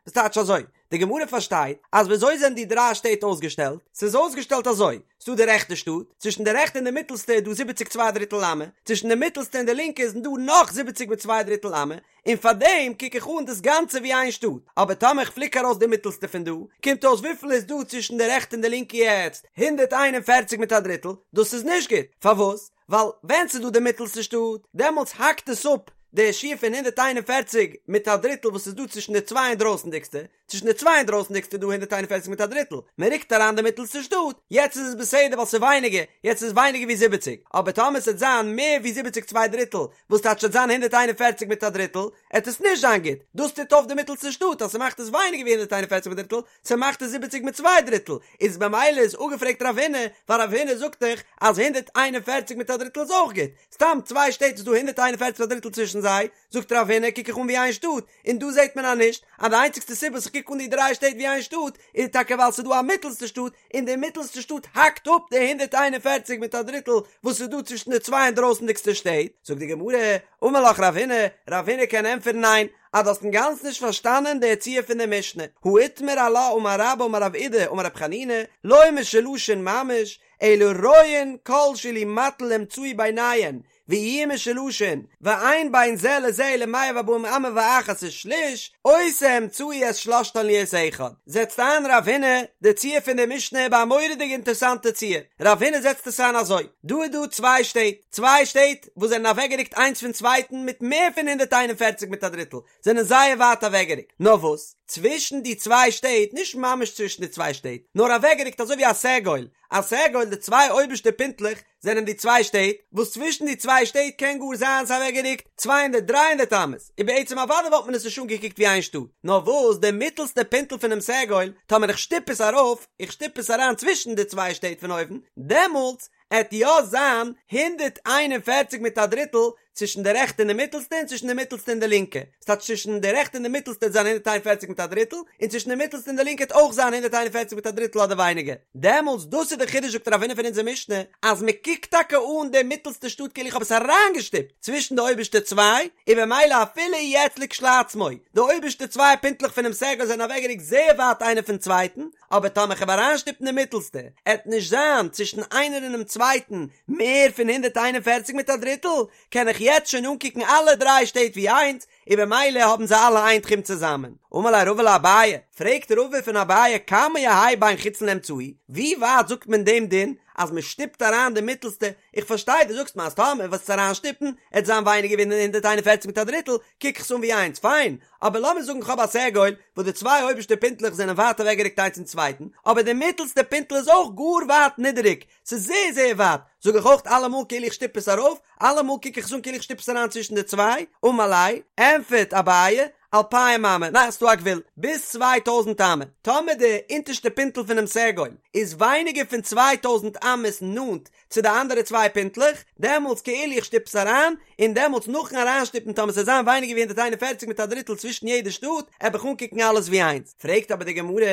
וואס טייטש אזוי? די גמרא פארשטייט אז וויאזוי זענען די דריי שטעט אויסגעשטעלט? ס'איז אויסגעשטעלט אזוי, ס'דא די רעכטע שטאט, צווישן די רעכטע און די מיטלסטע איז דא זיבעציק צוויי דריטל אמה, צווישן די מיטלסטע און די לינקע איז דא נאך זיבעציק מיט צוויי דריטל אמה, און פארדעם קוק איך אן דאס גאנצע ווי איין שטאט, אבער טאמער איך פליק ארויס די מיטלסטע פון דא, קומט אויס וויפיל איז דא צווישן די רעכטע און די לינקע יעצט? 141 מיט א דריטל, דאס איז נישט גוט, פארוואס? ווייל ווען ס'איז דא די מיטלסטע שטאט, דעמאלטס האקט עס אפ די שיעור פון 141 מיט א דריטל וואס איז דא צווישן די צוויי אינדרויסנדיגסטע, צווישן די צוויי אינדרויסנדיגסטע איז דא 141 מיט א דריטל, מען רוקט אריין די מיטלסטע שטאט, יעצט איז עס בסדר ווייל ס'איז ווייניגער, יעצט איז עס ווייניגער ווי זיבעציג, אבער טאמער ס'עט זיין מער ווי זיבעציג צוויי דריטל, וואס טייטש ס'עט זיין 141 מיט א דריטל, עט עס נישט זיין גוט, דאס טוט אויף די מיטלסטע שטאט אז ס'מאכט עס ווייניגער ווי 141 מיט א דריטל, ס'מאכט עס זיבעציג מיט צוויי דריטל, איז במילא איז אפגעפרעגט רב הונא, ווייל רב הונא זאגט דאך אז 141 מיט א דריטל איז אויך גוט, סתם צוויי שטעט איז דא 141 מיט א דריטל צווישן זיי, זאגט רב הונא קוק איך אן ווי איין שטאט, און דא זעט מען אז נישט, אז די איינציגסטע סיבה וואס איך קוק אן די דריי שטעט ווי איין שטאט, איז טאקע ווייל ס'איז דא א מיטלסטע שטאט, און די מיטלסטע שטאט האקט אפ די 141 מיט א דריטל וואס איז דא צווישן די צוויי אינדרויסנדיגסטע שטעט, זאגט די גמרא, אמר לך רב הונא, רב הונא קען ענטפערן ניין, אז דו האסט אינגאנצן נישט פארשטאנען די ציור פון די משנה, הא איתמר עלה אמר רבה אמר רב אידי אמר רב חנינא, לא משולשין ממש, אלא רואין כל שאילו מטיל אמצעי ביניהן. ויהיו משולשין, ואין בין זה לזה אלא מאה וארבעים אמה ואחת ושליש, עושה אמצעי את שלשתן להיות אחד. זעצט איין רב הונא די ציור פון די משנה ביי א מורא'דיגע אינטערסאנטע ציור. רב הונא זעצט עס איין אזוי, דא איז דא צוויי שטעט, צוויי שטעט וואס זענען אוועקגערוקט איינס פון צווייטן מיט מער פון 141 מיט א דריטל, זענען זייער ווייט אוועקגערוקט. נאר וואס, צווישן די צוויי שטעט, נישט ממש צווישן די צוויי שטעט, נאר אוועקגערוקט אזוי ווי א סגול, א סגול די צוויי אויבערשטע פינטלעך זענען די צוויי שטעט, וואס צווישן די צוויי שטעט קען גאר זיין ס'איז אוועקגערוקט צוויי הונדערט דריי הונדערט אמות, און בעצם אוודאי וואלט מען עס נישט אנגעקוקט ווי איין שטאט, נאר וואס די מיטעלסטע פינטל פונעם סגול, טאמער איך שטופ עס ארויף, איך שטופ עס אריין צווישן די צוויי שטעט פון אויבן, דעמאלטס עט יא זיין 141 מיט א דריטל צווישן די רעכטע און די מיטלסטע און צווישן די מיטלסטע און די לינקע, ס'טייטש צווישן די רעכטע און די מיטלסטע עט זיין 141 מיט א דריטל, און צווישן די מיטלסטע און די לינקע עט אויך זיין 141 מיט א דריטל אדער ווייניגער. דעמאלטס, דאס איז די חידוש זאגט רב הונא פון אונזער משנה, אז מען קוקט טאקע אן די מיטלסטע שטאט כאילו איך האב עס אריינגעשטופט צווישן די אויבערשטע צוויי, און במילא אפילו יעצט לכשלעצמו, די אויבערשטע צוויי פינטלעך פונעם סגול זענען אוועקגערוקט זייער ווייט איינער פון צווייטן, אבער טאמער כ'וועל אריינשטופן די מיטלסטע, עט נישט זיין צווישן איינער און דעם צווייטן מער פון 141 מיט א דריטל, קען איך יעצט שוין אנקוקן אלע דריי שטעט ווי איינס, און במילא האבן זיי אלע איין תחום צוזאמען. אמר ליה רבא לאביי, פרעגט רבא פון אביי כמה יהא בין חיצון לאמצעי, ווי ווייט זאגט מען דעם דין אז מען שטופט אריין די מיטלסטע, איך פארשטיי דו זאגסט מיר אז טאמער וועסט עס אריינשטופן עט זיין ווייניגער ווי 141 מיט א דריטל, קוק איך עס אן ווי איינס, פיין, אבער לאמיר זאגן כ'האב א סגול וואס די צוויי אויבערשטע פינטלעך זענען ווייט אוועקגערוקט איינס צום צווייטן, אבער די מיטלסטע פינטל איז אויך גאר ווייט נידעריג, ס'איז זייער זייער ווייט, זאג איך אויך אלעמאל כאילו איך שטופ עס ארויף, אלעמאל קוק איך עס אן כאילו איך שטופ עס אריין צווישן די צוויי, אמר ליה, ענטפערט אביי, אלפים אמה, ניין ס'דא א גבול, ביז 2000 אמה, טאמער די אונטערשטע פינטל פונעם סגול איז ווייניגער פון 2000 אמות נאנט צו די אנדערע צוויי פינטלעך, דעמאלטס כאילו איך שטופ עס אריין, און דעמאלטס נאכן אריינשטופן טאמער ס'זאל זיין ווייניגער ווי 141 מיט א דריטל צווישן יעדע שטאט, עב איך אנקוקן אלעס ווי איינס. פרעגט אבער די גמרא,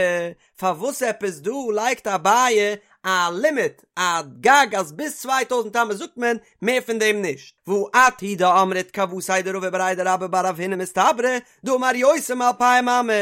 פארוואס עפעס דא לייגט אביי א לימיט, א גג אז ביז 2000 אמות זאגט מען, מער פון דעם נישט. והא את הוא דאמרת כוותיה דרבא בריה דרבה בר רב הונא מסתברא, דאמר יותר מאלפים אמה,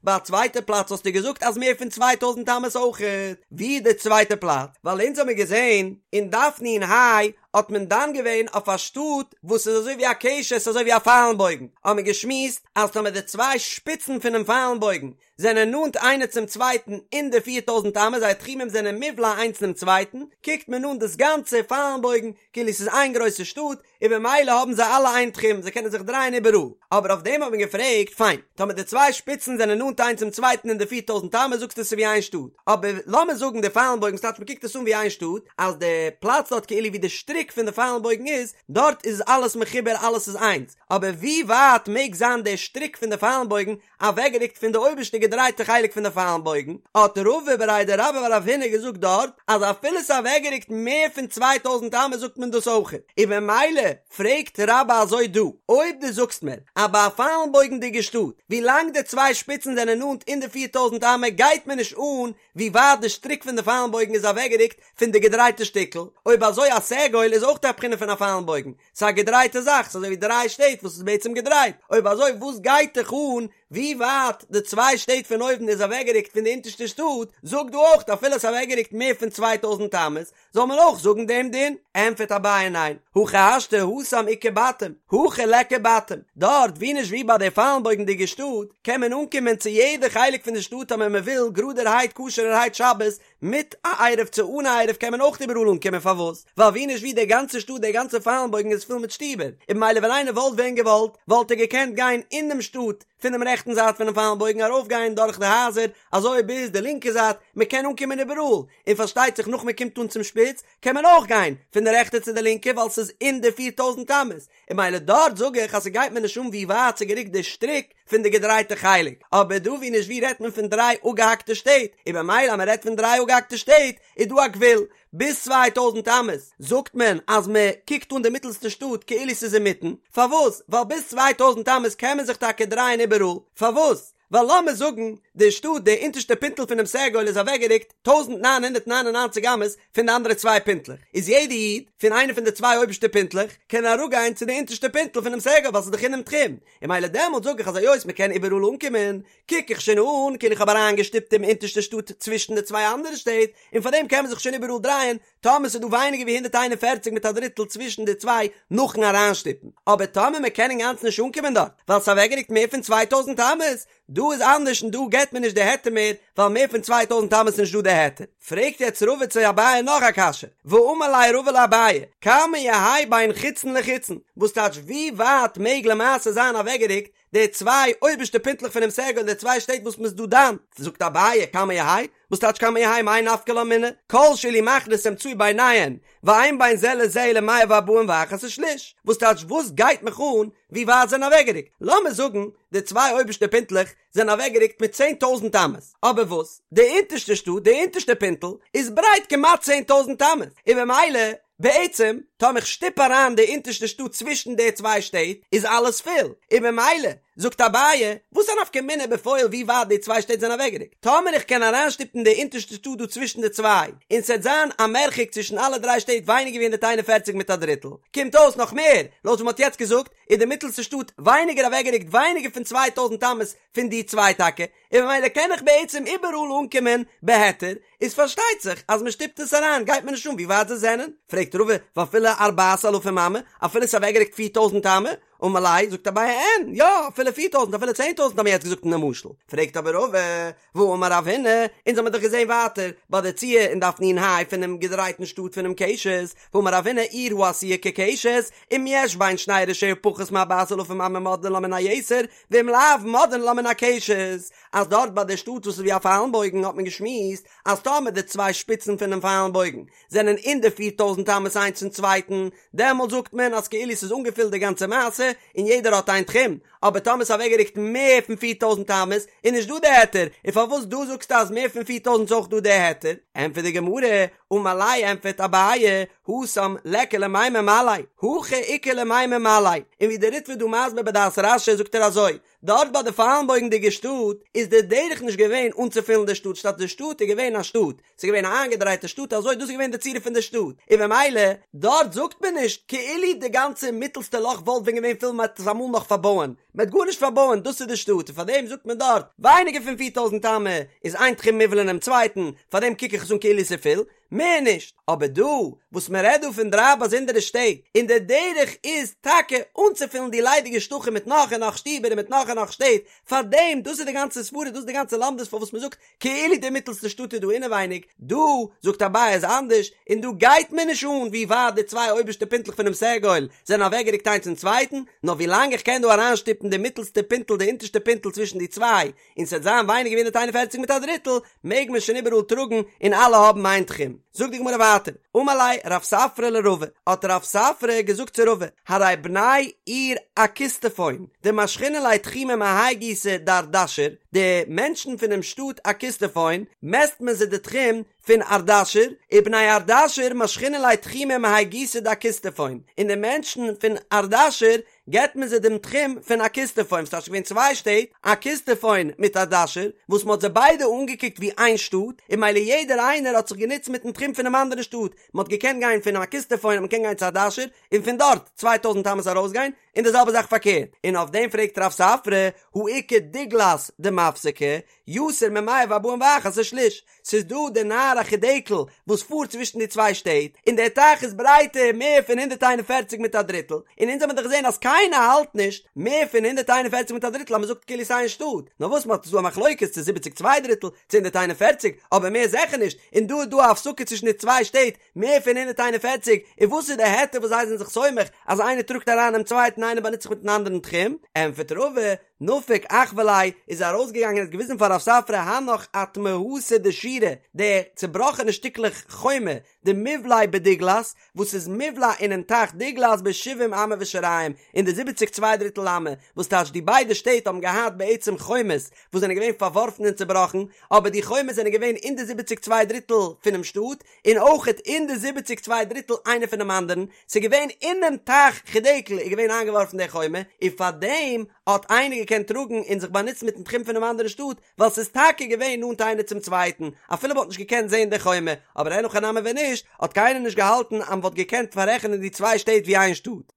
ביי א צווייטע פלאץ האסטו געזאגט אז מער פון צוויי טויזנט אמות אויכעט, ווי איז די צווייטע פלאץ? ווייל אונז האמיר געזען אין דף נ"ה האט מען דן געווען אויף א שטאט וואס איז אזוי ווי א קשת אזוי ווי א פיילן בויגן, האמיר געשמועסט אז טאמער די צוויי שפיצן פונעם פיילן בויגן זענען נאנט איינער צום צווייטן אין די פיר טויזנט אמות זייער תחומים זענען מובלע איינס אינעם צווייטן, קוקט מען אן דאס גאנצע פיילן בויגן כאילו ס'איז איין גרויסע שטאט, און במילא האבן זיי אלע איין תחום, זיי קענען זיך דרייען איבעראל. אבער אויף דעם האט מען געפרעגט, פיין, טאמער די צוויי שפיצן זענען נאנט איינס צום צווייטן אין די פיר טויזנט אמות זאגסטו עס איז ווי איין שטאט, אבער לאמיר זאגן די פיילן בויגן ס'טייטש מ'קוקט עס אן ווי איין שטאט, אז די פלאץ דארט כאילו ווי די שטריק פון די פיילן בויגן איז, דארט איז אלעס מחובר אלעס איז איינס, אבער ווי ווייט מעג זיין די שטריק פון די פיילן בויגן אוועקגערוקט פון די אויבערשטע געדרייטע חלק פון די פיילן בויגן, האט רבא בריה דרבה בר רב הונא געזאגט דארט אז אפילו ס'איז אוועקגערוקט מער פון צוויי טויזנט אמות זאגט מען דאס אויכעט, און במילא פרעגט רבה אזוי דא, אויב דו זאגסט מיר אז ביי א פיילן בויגנדיגע שטאט ווי לאנג די צוויי שפיצן זענען נאנט אין די פיר טויזנט אמה גייט מיר נישט אן ווי ווייט די שטריק פון די פיילן בויגן איז אוועקגערוקט פון די געדרייטע שטיקל, אויב אזוי א סגול איז אויך א בחינה פון א פיילן בויגן, ס'איז א געדרייטע זאך, ס'איז אזוי ווי דריי שטעט וואס איז בעצם געדרייט, אויב אזוי וואס גייט דיך אן ווי ווייט די צוויי שטעט פון אויבן איז אוועקגערוקט פון די אונטערשטע שטאט, זאג דא אויך אפילו עס איז אוועקגערוקט מער פון צוויי טויזנט אמות, זאל מען אויך זאגן דעם דין? ענטפערט אביי ניין, הכי השתא התם איכא בתים, הכא ליכא בתים, דארט ווי נישט ווי ביי די פיילנבויגנדיגע שטאט קען מען אנקומען צו יעדע חלק פון די שטאט אויב מען וויל גראדערהייט כשר'ערהייט שבת, מיט א עירוב צו אן א עירוב קען מען אויך איבעראל אנקומען פארוואס? ווייל ווי נישט ווי די גאנצע שטאט די גאנצע פיילנבויגן איז פול מיט שטיבער און במילא ווען איינער וואלט ווען געוואלט וואלט ער געקענט גיין אינעם שטאט פונעם רעכטן זייט פונעם פיילנבויגן ארויפגיין דורך די הייזער אזוי ביז די לינקע זייט מען קען אנקומען איבעראל און פארשטייט זיך נאך מען קומט אן צום שפיץ קען מען אויך גיין פון די רעכטע צו די לינקע ווייל ס'איז אין די 4000 אמות און במילא דארט זאג איך אז ס'גייט מיר נישט אן ווי ווייט ס'גערוקט די שטריק פון די געדרייטע חלק, אבער דא ווי נישט ווי רעדט מען פון דריי אפגעהאקטע שטעט, און במילא אז מען רעדט פון דריי אפגעהאקטע שטעט איז דא א גבול, ביז 2000 אמות זאגט מען אז מען קוקט אן די מיטלסטע שטאט כאילו ס'איז אינמיטן, פארוואס? ווייל ביז 2000 אמות קען מען זיך טאקע דרייען איבעראל, פארוואס? ווייל לאמיר זאגן. די שטאט, די אונטערשטע פינטל פונעם סגול איז אוועקגערוקט 1999 אמות פון די אנדערע צוויי פינטלעך, איז יעדע איד פון איינע פון די צוויי אויבערשטע פינטלעך קען אראפגיין צו די אונטערשטע פינטל פונעם סגול ווייל ס'איז דאך אינעם תחום, און ממילא דעמאלט זאג איך אז היות מ'קען איבעראל אנקומען, קוק איך שוין אן כאילו איך האב אריינגעשטופט דעם אונטערשטע שטאט צווישן די צוויי אנדערע שטעט, און פארדעם קען מען זיך שוין איבעראל דרייען, טאמער ס'איז דא ווייניגער ווי 141 מיט א דריטל צווישן די צוויי נאכן אריינשטופן, אבער טאמער מ'קען אינגאנצן נישט אנקומען דארט ווייל ס'איז אוועקגערוקט מער פון 2000 אמות, דא איז אנדערש און דא געט מען נישט די היתר מער ווייל מער פון 2000 אמות איז נישט דא די היתר. פרעגט יעצט רבא צו אביי נאך א קשיא, ואמר ליה רבא לאביי, כמה יהא בין חיצון לחיצון, וואס טייטש ווי ווייט מעג למעשה זיין אוועקגערוקט די צוויי אויבערשטע פינטלעך פונעם סגול די צוויי שטעט וואס מ'איז דא דן, זאגט אביי כמה יהא, וואס טייטש כמה יהא מאי נפקא לה מינה, כל שאילו מכניס אמצעי ביניהן, ואין בין זה לזה אלא מאה וארבעים ואחת ושליש, וואס טייטש וואס גייט מיך אן ווי ווייט זענען אוועקגערוקט, לאמיר זאגן די צוויי אויבערשטע פינטלעך זענען אוועקגערוקט מיט 10,000 אמות, אבער וואס די אונטערשטע שטאט די אונטערשטע פינטל איז ברייט כמעט 10,000 אמות, און במילא בעצם טאמער איך שטופ אריין די אונטערשטע שטאט צווישן די צוויי שטעט איז אלעס פול, און במילא זאגט אביי, וואס א נפקא מינה בפועל ווי ווייט די צוויי שטעט זענען אוועקגערוקט? טאמער איך קען אריינשטופן די אונטערשטע שטאט דא צווישן די צוויי, און ס'עט זיין א מרחק צווישן אלע דריי שטעט ווייניגער ווי 141 מיט א דריטל, קומט אויס נאך מער, לויט ווי מ'האט יעצט געזאגט, איז די מיטלסטע שטאט ווייניגער אוועקגערוקט ווייניגער פון 2000 אמות פון די צוויי טאקע, און ממילא קען איך בעצם איבעראל אנקומען בהיתר, איז פארשטייט זיך אז מ'שטופט עס אריין גייט מיר נישט אן ווי ווייט זיי זענען, פרעגט רבא, ואפילו ארבעת אלפים אמה, אפילו ס'איז אוועקגערוקט 4000 אמה, אמר ליה, זאגט אביי אין, יא, אפילו פיר טויזנט, אפילו צען טויזנט האבן מיר יעצט געזאגט אין די משל. פרעגט אבער רבא, והאמר רב הונא, אונז האמיר דאך געזען ווייטער, ביי די ציור אין דף נ"ה פונעם געדרייטן שטאט פונעם קשת, והאמר רב הונא עיר העשויה כקשת, אם יש בין שני ראשיה פחות מארבעת אלפים אמה מודדין לה מן היתר, ואם לאו מודדין לה מן הקשת, אז דארט ביי די שטאט וואס איז ווי א פיילן בויגן האט מען געשמועסט אז טאמער די צוויי שפיצן פונעם פיילן בויגן זענען אין די פיר טויזנט אמות איינס צום צווייטן, דעמאלט זאגט מען אז כאילו ס'איז אנגעפילט די גאנצע מעשה און יעדער האט איין תחום, אבער טאמער ס'איז אוועקגערוקט מער פון פיר טויזנט אמות איז נישט דא די היתר, און פארוואס דא זאגסטו אז מער פון פיר טויזנט איז אויך דא די היתר? ענטפערט די גמרא, אמר ליה ענטפערט אביי, התם ליכא למימר מלא, הכא איכא למימר מלא, און ווי די ריטב"א איז דא מסביר בדעת רש"י זאגט ער אזוי, דארט ביי די פיילנבויגנדיגע שטאט איז די דרך נישט געווען אנצופילן די שטאט שטאט די שטאט איז געווען א שטאט ס'איז געווען א איינגעדרייטע שטאט אזוי דאס איז געווען די צורה פון די שטאט און במילא דארט זאגט מען נישט כאילו די גאנצע מיטלסטע לאך וואלט ווען געווען פול מ'העט עס אמאל נאך פארבויען מ'העט גארנישט פארבויען דאס איז די שטאט און פארדעם זאגט מען דארט ווייניגער פון 4000 אמה איז איין תחום מובלע אינעם צווייטן פארדעם קוק איך עס אן כאילו ס'איז פול מער נישט, אבער דא וואס מען רעדט דא פון דריי באזונדערע שטעט, און די דרך איז טאקע אנצופילן די ליידיגע שטחים מיט נאך און נאך שטיבער און מיט נאך און נאך שטעט, פארדעם, דאס איז די גאנצע סברא, דאס איז די גאנצע לומדות פארוואס מען זאגט כאילו די מיטלסטע שטאט איז דא אינעווייניג, דא זאגט אביי איז אנדערש, און דא גייט מיר נישט אן ווי ווייט די צוויי אויבערשטע פינטלעך פונעם סגול זענען אוועקגערוקט איינס צום צווייטן, נאר ווי לאנג איך קען דא אריינשטופן די מיטלסטע פינטל די אונטערשטע פינטל צווישן די צוויי, און ס'וועט זיין ווייניגער ווי 141 מיט א דריטל, מעג מען שוין איבעראל טראגן און אלע האבן איין תחום. זאגט די גמרא ווייטער, אמר ליה רב ספרא לרבא, האט רב ספרא געזאגט צו רבא, הרי בני עיר אקיסטפון, דמשכינן להו תחומא מהאי גיסא דארדשיר, די מענטשן פונעם שטאט אקיסטפון, מעסט מען זיי די תחום פון ארדשיר, ובני ארדשיר משכינן להו תחומא מהאי גיסא דאקיסטפון, און די מענטשן פון ארדשיר געבט מען זיי דעם תחום פון אקיסטפון, ס'טייטש געווען צוויי שטעט, אקיסטפון מיט ארדשיר, וואס מ'האט זיי ביידע אנגעקוקט ווי איין שטאט, און מילא יעדער איינער האט זיך גענוצט מיטן תחום פונעם אנדערן שטאט, מ'האט געקענט גיין פון אקיסטפון האט מען געקענט גיין צו ארדשיר, און פון דארט צוויי טויזנט אמות ארויסגיין, און די זעלבע זאך פארקערט, און אויף דעם פרעגט רב ספרא, הא איכא דגלת דמפסקא, יותר ממאה וארבעים ואחת ושליש, ס'איז דא די נהר החידקל וואס פארט צווישן די צוויי שטעט, און דער טייך איז ברייטער מער פון 141 מיט א דריטל, און אונז האבן דאך געזען אז קיינער האלט נישט מער פון 141 מיט א דריטל אז מ'זאגט כאילו ס'איין שטאט, נאר וואס מ'האט איז דא א מחלוקת צו זיבעציג צוויי דריטל צו 141, אבער מער זיכער נישט, און דא איז דא א הפסקה צווישן די צוויי שטעט מער פון 141, און וואס איז די היתר וואס זיי זענען זיך סומך אז איינער טראגט אריין דעם צווייטן איינער באנוצט זיך מיטן אנדערן תחום, ענטפערט רבא, נפק אחוי ליה איז ארויסגעגאנגען און האט געוויזן פאר רב ספרא הנך אטמהתא דשירא, די צובראכענע שטיקלעך חומה, דמיבלעי בדיגלת, וואס איז מובלע אינעם טייך דיגלת בשבעים אמה ושיריים, אין די זיבעציג צוויי דריטל אמה, וואס טייטש די ביידע שטעט האבן געהאט בעצם חומות וואס זענען געווען פארווארפן און צובראכן, אבער די חומות זענען געווען אין די זיבעציג צוויי דריטל פונעם שטאט, און אויכעט אין די זיבעציג צוויי דריטל איינער פונעם אנדערן, ס'איז געווען אינעם טייך חידקל איז געווען איינגעווארפן די חומה, און פארדעם האט איינער געקענט. געקענט טראגן און זיך באנוצן מיטן תחום פונעם אנדערן שטאט, ווייל ס'איז טאקע געווען נאנט איינער צום צווייטן, אפילו מ'האט נישט געקענט זען די חומה, אבער אין הכי נמי ווען נישט, האט קיינער נישט געהאלטן אז מ'וואלט געקענט פאררעכענען די צוויי שטעט ווי איין שטאט.